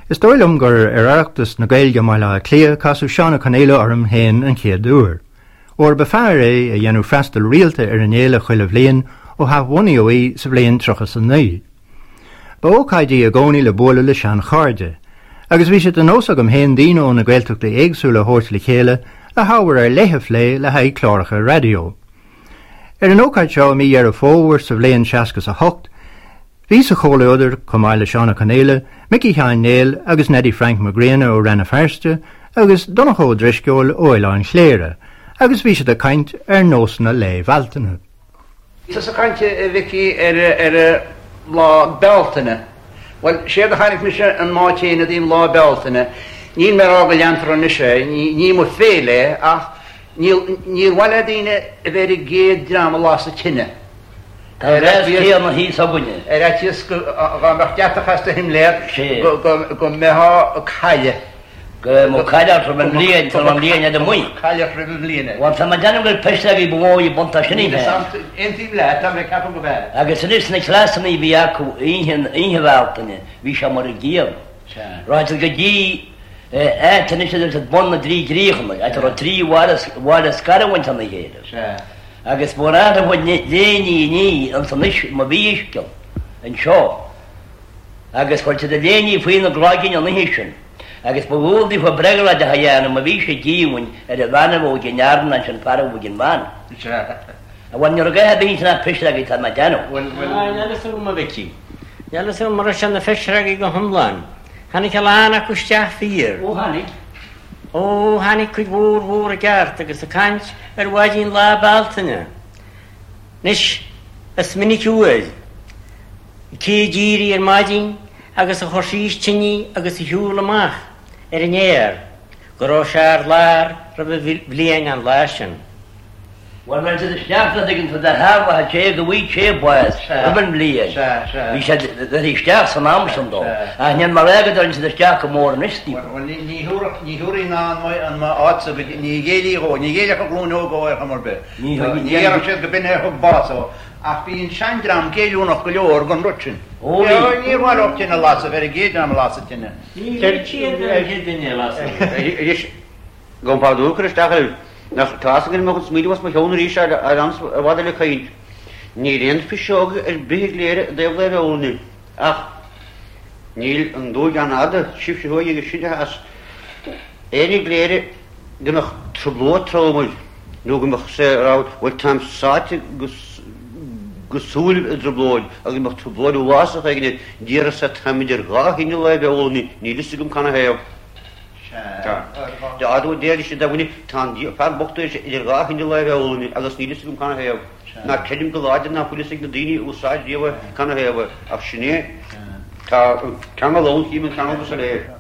Is dóigh liom gur ar Oireachtas na Gaeilge i mBaile Átha Cliath a casadh Seán Ó Conaola orm féin an chéad uair, óir ba fear é a dhéanadh freastal rialta ar an fhéile chuile bhliain ó hathbhunaíodh í sa bhliain 39. Ba ócáid í i gcónaí le bualadh le seanchairde, agus bhí sé de nós agam féin daoine ó na Gaeltachtaí éagsúla a thabhairt le chéile le hábhar ar leith a phlé le haghaidh cláracha raidió. Ar an ócáid seo i mí Dheireadh Fómhair sa bhliain 68, Bhí sa chomhluadar, chomh maith le Seán Ó Conaola, Micí Sheáin Néill agus Neidí Frainc Mac Grianna ó Rann na Feirste agus Donncha Ó Drisceoil ó Oileán Chléire, agus bhí siad ag caint ar nósanna Lae Bhealtaine. Tusa ag caint, a Mhicí, ar Lá Bealtaine. Bhuel, séard a chonaic mise an mbád féin i dtaobh Lá Bealtaine, níl mé ag rá go leantar anois é, ní mo féile é, ach níor mhaith le daoine a bheith ar an gcéad dream a las an tine. Tá an bheas céanna thíos againne. Ar fhaitíos go dá mbeadh deatach as do shimléar go mbeifeá ag cailleadh. Go mbeadh cailleadh ort roimh an mbliain, tá an bhliain fhada amuigh. Cailleadh ort roimh an mbliain. Bhuel, tá mé ag déanamh gur pisreogaí ba mhó í buntáiste sin féin. Aontaím leat, tá mé ag ceapadh gurb ea. Agus anois na cleasanna a bhí acu oíche Bhealtaine, bhí sé mar an gcéanna. Rachadh siad go dtí áit anois a deir siad Bun na dTrí gCríochanna, áit a raibh trí bhaile scarúint óna chéile. Agus ba mhór a chuid léiní ní ansan anois má bhí uisce anseo. Agus chuir siad a léiní faoi na gcloigeann an oíche sin. Agus ba dhual daofa bréagraideach a dhéanamh má bhí sé díomhaoin ar an bhean a bheadh ag an fhear ná ansin fear a bheadh ag an bhean. Bhuel, ní raibh a dhath ar bith ansin ach pisreogaí tá mé ag déanamh. Bhuel, bhuel. Níl a fhios agam, a Mhicí. Níl a fhios agam an raibh sé na phisreogaí go hiomlán. Tháinig a lán acu isteach fíor. Ó tháinig. Ó, tháinig cuid mhór mhór i gceart agus ag caint ar mhaidin Lá Bealtaine. Anois, is minic uair, cé a d'éirigh ar maidin agus a chuir síos tine agus a shiúl amach ar an fhéar, go raibh sé ar lár roimh an bhliain an lá sin. Bhuel, bhain siad isteach dá dtuigeann tú do theaghlach a té go bhfaighidh sé bás roimh an mbliain. Bhí siad bheirthe isteach san am sin dó. Ach níl mé ag rá go dtagann siad isteach go mór anois daofa. Bhuel, ní thabharfaidh ná an áit go ní ghéillfidh dhó, ní ghéillfeadh an ghlúin óg dhó ar chuma ar bith. Ní dhéarfadh siad go b'in é a thug bás dhó. Ach bhí an seandream géilliúnach go leor don rud sin. Ó bhí. Níor mhaith leo tine a lasadh, bheith ar an gcéad dream a las an tine. Ní bhí siad ar an gcéad duine a las an tine. Gabhaim pardún a chur isteach oraibh. Nach tá fhios againn mo chuid smaoineamh as mo cheann arís ar an i bhfad eile caint. Níl aon phiseog ar bith i gCléire i dtaobh Lá Bealtaine. Ach níl an dúigh an-fhada, sibhse thuaidh agus sinne theas. Éinne i gCléire go mbeadh trioblóid trom air nó go mbeadh sé ag rá bhuel táim sáite go súilibh i dtrioblóid agus go mbeadh trioblóid uafásach éigin air, déarfadh sé táim idir dhá thine Lá Bealtaine, níl fhios agam canathaobh. Tá deir siad do dhuine, tá an fear bocht idir dhá thine Lá Bealtaine agus níl fhios agam canathaobh. Ná creidim go láidir ná fuil fhios ag na daoine a úsáid riamh é canathaobh é, ach sin é. Tá an ceangal ann, chím an ceangal go soiléir.